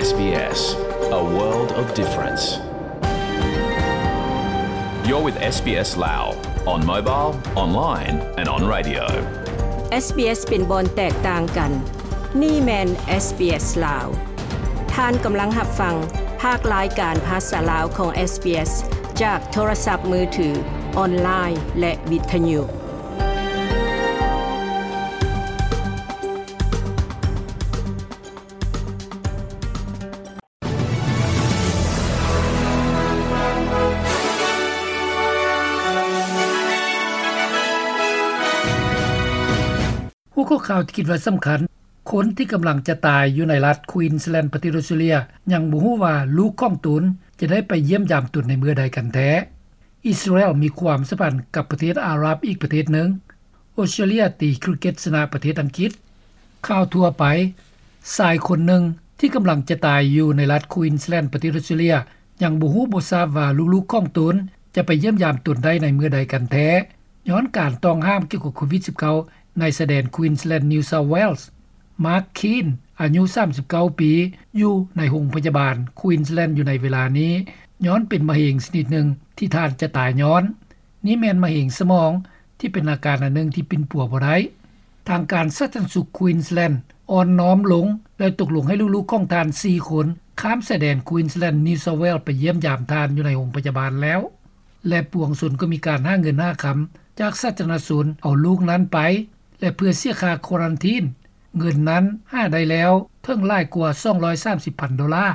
SBS, a world of difference. You're with SBS Lao on mobile, online and on radio. SBS ເປັນບ່ອນແຕກຕ່າງກັນ. ນີ້ແມ່ນ SBS ລາວ. ທ່ານກຳລັງຮັບຟັງພາກລາຍການພາສາລາວຂອງ SBS ຈາກໂທລະສັບມືຖື, ອອນລາຍ ແລະ ວິທະຍຸ. ຫົວຂໍ້ຂ່າວທີ່ຄິດວ່າສຳຄັນ, ຄົນທີ່ກຳລັງຈະຕາຍຢູ່ໃນລັດ Queensland ປະເທດອອສເຕຣເລຍ ຍັງບໍ່ຮູ້ວ່າລູກຂອງຕົນຈະໄດ້ໄປຢ້ຽມຢາມຕົນໃນເມື່ອໃດກັນແທ້. ອິດສະຣາແອນມີຄວາມສຳພັນກັບປະເທດອາຣັບອີກປະເທດໜຶ່ງ. ອອສເຕຣເລຍຕີຄຣິກເກັດຊະນະປະເທດອັງກິດ. ຂ່າວທົ່ວໄປ, ຊາຍຄົນໜຶ່ງທີ່ກຳລັງຈະຕາຍຢູ່ໃນລັດ Queensland ປະເທດອອສເຕຣເລຍ ຍັງບໍ່ຮູ້ບໍ່ຊາບວ່າລູກໆຂອງຕົນຈະໄປຢ້ຽມຢາມຕົນໄດ້ໃນເມື່ອໃດກັນແທ້, ຍ້ອນການຕ້ອງຫ້າມກ່ຽວກັບໂຄວິດສິບເກົ້າ ໃນຊາຍແດນ Queensland New South Wales. ມາກ ຄີນ ອາຍຸສາມສິບເກົ້າປີ ຢູ່ໃນໂຮງພະຍາບານ Queensland ຢູ່ໃນເວລານີ້ ຍ້ອນເປັນມະເຮັງຊະນິດໜຶ່ງທີ່ທ່ານຈະຕາຍຍ້ອນ. ນີ້ແມ່ນມະເຮັງສະໝອງ ທີ່ເປັນອາການອັນໜຶ່ງທີ່ປິ່ນປົວບໍ່ໄດ້. ທາງການສາທາລະນະສຸກ Queensland ອ່ອນນ້ອມລົງ ແລະ ຕົກລົງໃຫ້ລູກໆຂອງທ່ານສີ່ຄົນ ຂ້າມຊາຍແດນ Queensland New South Wales ໄປຢ້ຽມຢາມທ່ານຢູ່ໃນໂຮງພະຍາບານແລ້ວ ແລະ ປວງຊົນກໍມີການຫາເງິນຫາຄຳຈາກສາທາລະນະຊົນເອົາລູກນັ້ນໄປ ແລະ ເພື່ອເສຍຄ່າຄວາຣັນທີນ. ເງິນນັ້ນຫາໄດ້ແລ້ວເຖິງຫຼາຍກວ່າສອງຮ້ອຍສາມສິບພັນໂດລາ,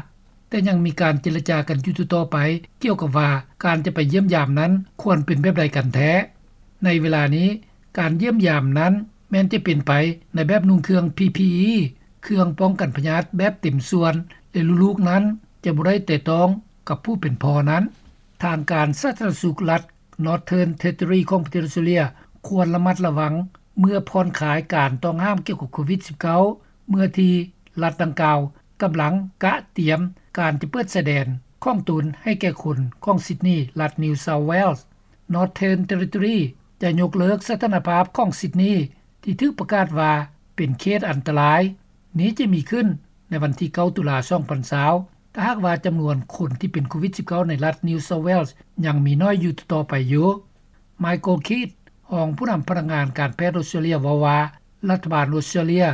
ແຕ່ຍັງມີການເຈລະຈາກັນຢູ່ຕໍ່ໆໄປ ກ່ຽວກັບວ່າການຈະໄປຢ້ຽມຢາມນັ້ນຄວນເປັນແບບໃດກັນແທ້. ໃນເວລານີ້ ການຢ້ຽມຢາມນັ້ນແມ່ນຈະເປັນໄປໃນແບບນຸ່ງເຄື່ອງ ພີພີອີ ເຄື່ອງປ້ອງກັນພະຍາດແບບເຕັມສ່ວນ ແລະ ລູກໆນັ້ນຈະບໍ່ໄດ້ແຕະຕ້ອງກັບຜູ້ເປັນພໍ່ນັ້ນ. ທາງການສາທາລະນະສຸກລັດ Northern Territory ຂອງປະເທດອອສເຕຣເລຍ ຄວນລະມັດລະວັງເມື່ອຜ່ອນຄາຍການຕ້ອງຫ້າມກ່ຽວກັບໂຄວິດສິບເກົ້າ ເມື່ອທີ່ລັດດັ່ງກ່າວກຳລັງກະຕຽມການຈະເປີດຊາຍແດນຂອງຕົນໃຫ້ແກ່ຄົນຂອງ Sydney ລັດ New South Wales. Northern Territory ຈະຍົກເລີກສະຖານະພາບຂອງ Sydney ທີ່ຖືກປະກາດວ່າເປັນເຂດອັນຕະລາຍ. ນີ້ຈະມີຂຶ້ນໃນວັນທີເກົ້າ ຕຸລາ ສອງພັນຊາວ ຖ້າຫາກວ່າຈຳນວນຄົນທີ່ເປັນໂຄວິດສິບເກົ້າໃນລັດ New South Wales ຍັງມີໜ້ອຍຢູ່ຕໍ່ໆໄປຢູ່. Michael Keith ຮອງຜູ້ນຳພະນັກງານການແພດອອສເຕຣເລຍເວົ້າວ່າ ລັດຖະບານອອສເຕຣເລຍ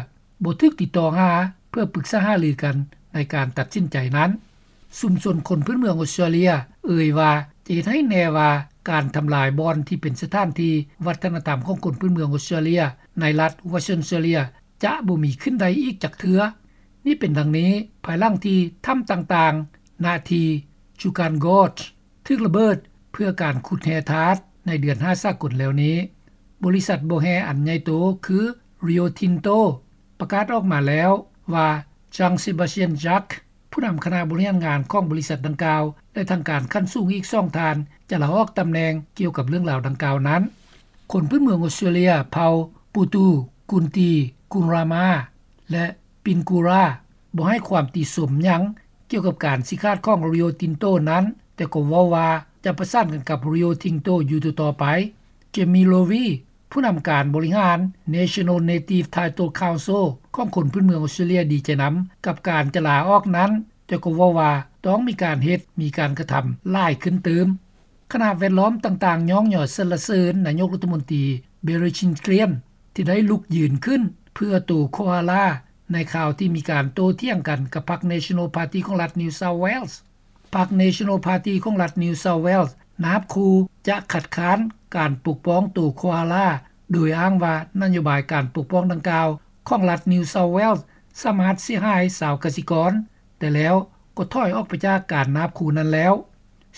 ບໍ່ຖືກຕິດຕໍ່ຫາເພື່ອປຶກສາຫາລືກັນໃນການຕັດສິນໃຈນັ້ນ. ຊຸມຊົນຄົນພື້ນເມືອງອອສເຕຣເລຍເອີ່ຍວ່າ ຈະເຮັດໃຫ້ແນ່ວ່າການທຳລາຍບ່ອນທີ່ເປັນສະຖານທີ່ວັດທະນະທຳຂອງຄົນພື້ນເມືອງອອສເຕຣເລຍໃນລັດ Western Australia ຈະບໍ່ມີຂຶ້ນໄດ້ອີກຈັກເທື່ອ. ນີ້ເປັນດັ່ງນີ້ ພາຍຫຼັງທີ່ຖ້ຳຕ່າງໆ ນະທີ່ Juukan Gorge ຖືກລະເບີດເພື່ອການຂຸດແຮ່ທາດໃນເດືອນຫ້າສາກົນແລ້ວນີ້. ບໍລິສັດບໍ່ແຮ່ອັນໃຫຍ່ໂຕຄື Rio Tinto ປະກາດອອກມາແລ້ວວ່າ Jean-Sébastien Jacques ຜູ້ນຳຄະນະບໍລິຫານງານຂອງບໍລິສັດດັ່ງກ່າວ ແລະ ທາງການຂັ້ນສູງອີກສອງທ່ານ ຈະລາອອກຕຳແໜ່ງກ່ຽວກັບເລື່ອງລາວດັ່ງກ່າວນັ້ນ. ຄົນພື້ນເມືອງອອສເຕຣເລຍເຜົ່າ Putu, Kunti, Kurrama ແລະ Pingkura ບໍ່ໃຫ້ຄວາມຕິຊົມຫຍັງກ່ຽວກັບການຊີ້ຂາດຂອງ Rio Tinto ນັ້ນ, ແຕ່ກໍເວົ້າວ່າຈະປະສານກັນກັບ Rio Tinto ຢູ່ຕໍ່ໆໄປ. Jamie Lowy ຜູ້ນຳການບໍລິຫານ National Native Title Council ຂອງຄົນພື້ນເມືອງອອສເຕຣເລຍດີໃຈນຳກັບການຈະລາອອກນັ້ນ, ແຕ່ກໍເວົ້າວ່າຕ້ອງມີການເຮັດ, ມີການກະທຳຫຼາຍຂຶ້ນຕື່ມ. ຄະນະແວດລ້ອມຕ່າງໆຍ້ອງຍໍສັນລະເສີນນາຍົກລັດຖະມົນຕີ Barry Shingrian ທີ່ໄດ້ລຸກຢືນຂຶ້ນເພື່ອໂຕໂຄອາລາ ໃນຄາວທີ່ມີການໂຕ້ຖຽງກັນກັບພັກ National Party ຂອງລັດ New South Wales. ພັກ National Party ຂອງລັດ New South Wales ນາບຂູ່ຈະຄັດຄ້ານການປົກປ້ອງໂຕໂຄອາລາ ໂດຍອ້າງວ່ານະໂຍບາຍການປົກປ້ອງດັ່ງກ່າວຂອງລັດ New South Wales ສາມາດເສຍຫາຍຊາວກະສິກອນ, ແຕ່ແລ້ວກໍຖອຍອອກໄປຈາກການນາບຂູ່ນັ້ນແລ້ວ.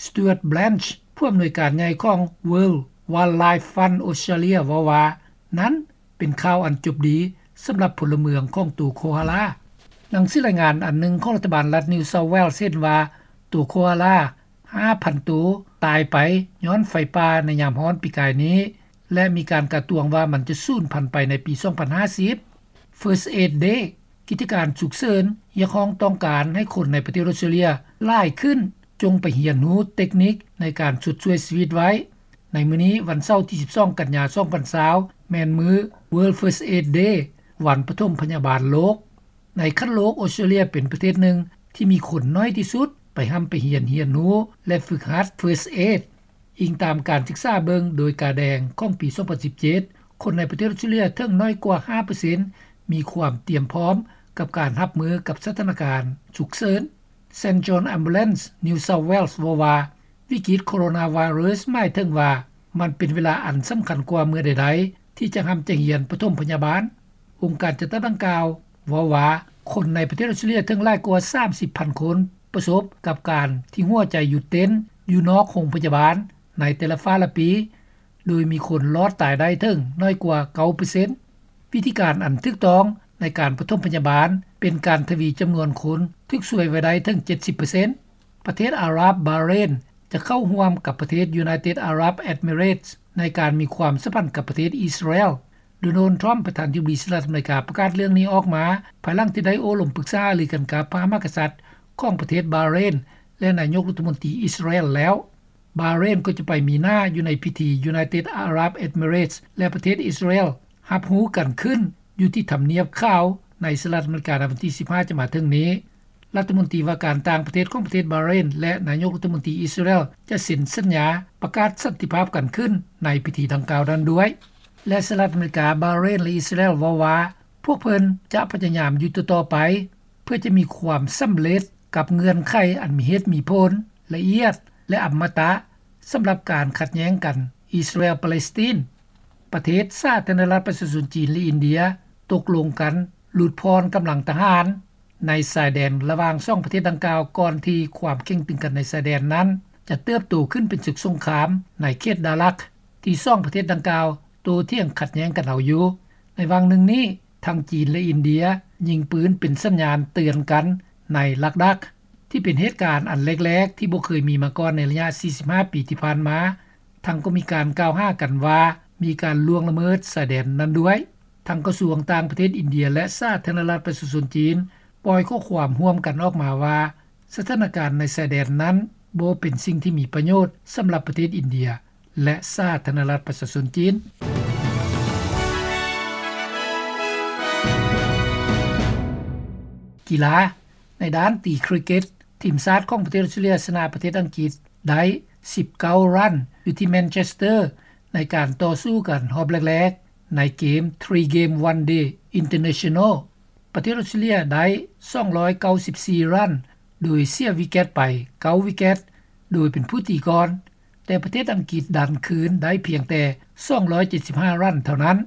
Stuart Blanch ຜູ້ອຳນວຍການໃຫຍ່ຂອງ World Wildlife Fund Australia ເວົ້າວ່າ ນັ້ນເປັນຂ່າວອັນຈົບດີສຳລັບພົນລະເມືອງຂອງໂຕໂຄອາລາ. ໜັງສືລາຍງານອັນໜຶ່ງຂອງລັດຖະບານລັດ New South Wales ເຫັນວ່າໂຕໂຄອາລາຫ້າພັນໂຕຕາຍໄປຍ້ອນໄຟປ່າໃນຍາມຮ້ອນປີກາຍນີ້ ແລະ ມີການກາດຕວງວ່າມັນຈະສູນພັນໄປໃນປີສອງພັນຫ້າສິບ. First Aid Day ກິດຈະການສຸກເສີນຮຽກຮ້ອງຕ້ອງການໃຫ້ຄົນໃນປະເທດອອສເຕຣເລຍຫຼາຍຂຶ້ນ ຈົ່ງໄປຮຽນຮູ້ເຕັກນິກໃນການຊົດຊ່ວຍຊີວິດໄວ້. ໃນມື້ນີ້ ວັນເສົາທີສິບສອງ ກັນຍາ ສອງພັນຊາວ ແມ່ນມື້ World First Aid Day ວັນປະຖົມພະຍາບານໂລກ. ໃນຂັ້ນໂລກ ອອສເຕຣເລຍເປັນປະເທດໜຶ່ງ ທີ່ມີຄົນໜ້ອຍທີ່ສຸດ ໄປຮ່ຳໄປຮຽນ ຮຽນຮູ້ ແລະ ຝຶກຫັດ First Aid. ອີງຕາມການສຶກສາເບິ່ງໂດຍກາແດງຂອງປີ ສອງພັນສິບເຈັດ ຄົນໃນປະເທດອອສເຕຣເລັຽເຖິງໜ້ອຍກວ່າ ຫ້າເປີເຊັນ ມີຄວາມຕຽມພ້ອມກັບການຮັບມືກັບສະຖານະການສຸກເສີນ. St John Ambulance New South Wales ເວົ້າວ່າ ວິກິດໂຄໂຣນາໄວຣັສໝາຍເຖິງວ່າ ມັນເປັນເວລາອັນສຳຄັນກວ່າເມື່ອໃດໆ ທີ່ຈະຮ່ຳຈະຮຽນປະຖົມພະຍາບານ. ອົງການຈັດຕັ້ງດັ່ງກ່າວເວົ້າວ່າ ຄົນໃນປະເທດອອສເຕຣເລັຽເຖິງຫຼາຍກວ່າ ສາມສິບພັນຄົນ ປະສົບກັບການທີ່ຫົວໃຈຢຸດເຕັ້ນຢູ່ນອກໂຮງພະຍາບານໃນແຕ່ລະຟ້າລະປີ ໂດຍມີຄົນລອດຕາຍໄດ້ເຖິງໜ້ອຍກວ່າ ເກົ້າເປີເຊັນ. ວິທີການອັນຖືກຕ້ອງໃນການປະຖົມພະຍາບານ ເປັນການທະວີຈຳນວນຄົນຖືກຊ່ວຍໄວ້ໄດ້ເຖິງ ເຈັດສິບເປີເຊັນ. ປະເທດອາຣັບບາເຣນ ຈະເຂົ້າຮ່ວມກັບປະເທດ United Arab Emirates ໃນການມີຄວາມສຳພັນກັບປະເທດອິດສະຣາແອລ. ໂດນັລ ທຣຳ ປະທານທິບໍດີສະຫະລັດອາເມລິກາ ປະກາດເລື່ອງນີ້ອອກມາ ພາຍຫຼັງທີ່ໄດ້ໂອ້ລົມປຶກສາຫາລືກັນກັບພະມະຫາກະສັດຂອງປະເທດບາເຣນ ແລະ ນາຍົກລັດຖະມົນຕີອິດສະຣາແອລແລ້ວ. ບາເຣນກໍຈະໄປມີໜ້າຢູ່ໃນພິທີ United Arab Emirates ແລະ ປະເທດອິດສະຣາແອລຮັບຮູ້ກັນຂຶ້ນຢູ່ທີ່ທຳນຽບຂາວໃນສະຫະລັດອາເມລິກາ ໃນວັນທີສິບຫ້າ ຈະມາເຖິງນີ້. ລັດຖະມົນຕີວ່າການຕ່າງປະເທດຂອງປະເທດບາເຣນ ແລະ ນາຍົກລັດຖະມົນຕີອິດສະຣາແອລ ຈະເຊັນສັນຍາປະກາດສັນຕິພາບກັນຂຶ້ນໃນພິທີດັ່ງກ່າວນັ້ນດ້ວຍ. ແລະ ສະຫະລັດອາເມລິກາ, ບາເຣນ ແລະ ອິດສະຣາແອລເວົ້າວ່າ ພວກເພິ່ນຈະພະຍາຍາມຢູ່ຕໍ່ໆໄປ ເພື່ອຈະມີຄວາມສຳເລັດກັບເງື່ອນໄຂອັນມີເຫດມີຜົນ, ລະອຽດ ແລະ ອຳມະຕະ ສຳລັບການຂັດແຍ່ງກັນອິດສະຣາແອລ-ປາເລສຕີນ. ປະເທດສາທາລະນະລັດປະຊາຊົນຈີນ ແລະ ອິນເດຍ ຕົກລົງກັນຫຼຸດຜ່ອນກຳລັງທະຫານໃນຊາຍແດນລະຫວ່າງສອງປະເທດດັ່ງກ່າວ ກ່ອນທີ່ຄວາມເຄັ່ງຕຶງກັນໃນຊາຍແດນນັ້ນຈະເຕີບໂຕຂຶ້ນເປັນເສິກສົງຄາມໃນເຂດດາຣັກ ທີ່ສອງປະເທດດັ່ງກ່າວໂຕ້ຖຽງຂັດແຍ່ງກັນເອົາຢູ່. ໃນຫວ່າງໜຶ່ງນີ້ ທັງຈີນ ແລະ ອິນເດຍຍິງປືນເປັນສັນຍານເຕືອນກັນໃນລັກດັກ ທີ່ເປັນເຫດການອັນແລກໆທີ່ບໍ່ເຄີຍມີມາກ່ອນໃນໄລຍະສີ່ສິບຫ້າປີທີ່ຜ່ານມາ. ທັງກໍມີການກ່າວຫາກັນວ່າມີການລ່ວງລະເມີດຊາຍແດນນັ້ນດ້ວຍ. ທັງກະຊວງຕ່າງປະເທດອິນເດຍ ແລະ ສາທາລະນະລັດປະຊາຊົນຈີນ ປ່ອຍຂໍ້ຄວາມຮ່ວມກັນອອກມາວ່າ ສະຖານະການໃນຊາຍແດນນັ້ນບໍ່ເປັນສິ່ງທີ່ມີປະໂຫຍດສຳລັບປະເທດອິນເດຍ ແລະ ສາທາລະນະລັດປະຊາຊົນຈີນ. ກິລາ. ໃນດ້ານຕີຄຣິກເກັດ, ທີມຊາດຂອງປະເທດອອສເຕຣເລັຽຊະນະປະເທດອັງກິດໄດ້ສິບເກົ້າຣັນ ຢູ່ທີ່ແມນເຊສເຕີ ໃນການຕໍ່ສູ້ກັນຮອບແລກໆ ໃນເກມ Three Game One Day International. ປະເທດອອສເຕຣເລັຽໄດ້ສອງຮ້ອຍເກົ້າສິບສີ່ຣັນ ໂດຍເສຍວິກເກັດໄປເກົ້າວິກເກັດ ໂດຍເປັນຜູ້ຕີກ່ອນ, ແຕ່ປະເທດອັງກິດດັນຄືນໄດ້ພຽງແຕ່ສອງຮ້ອຍເຈັດສິບຫ້າຣັນເທົ່ານັ້ນ.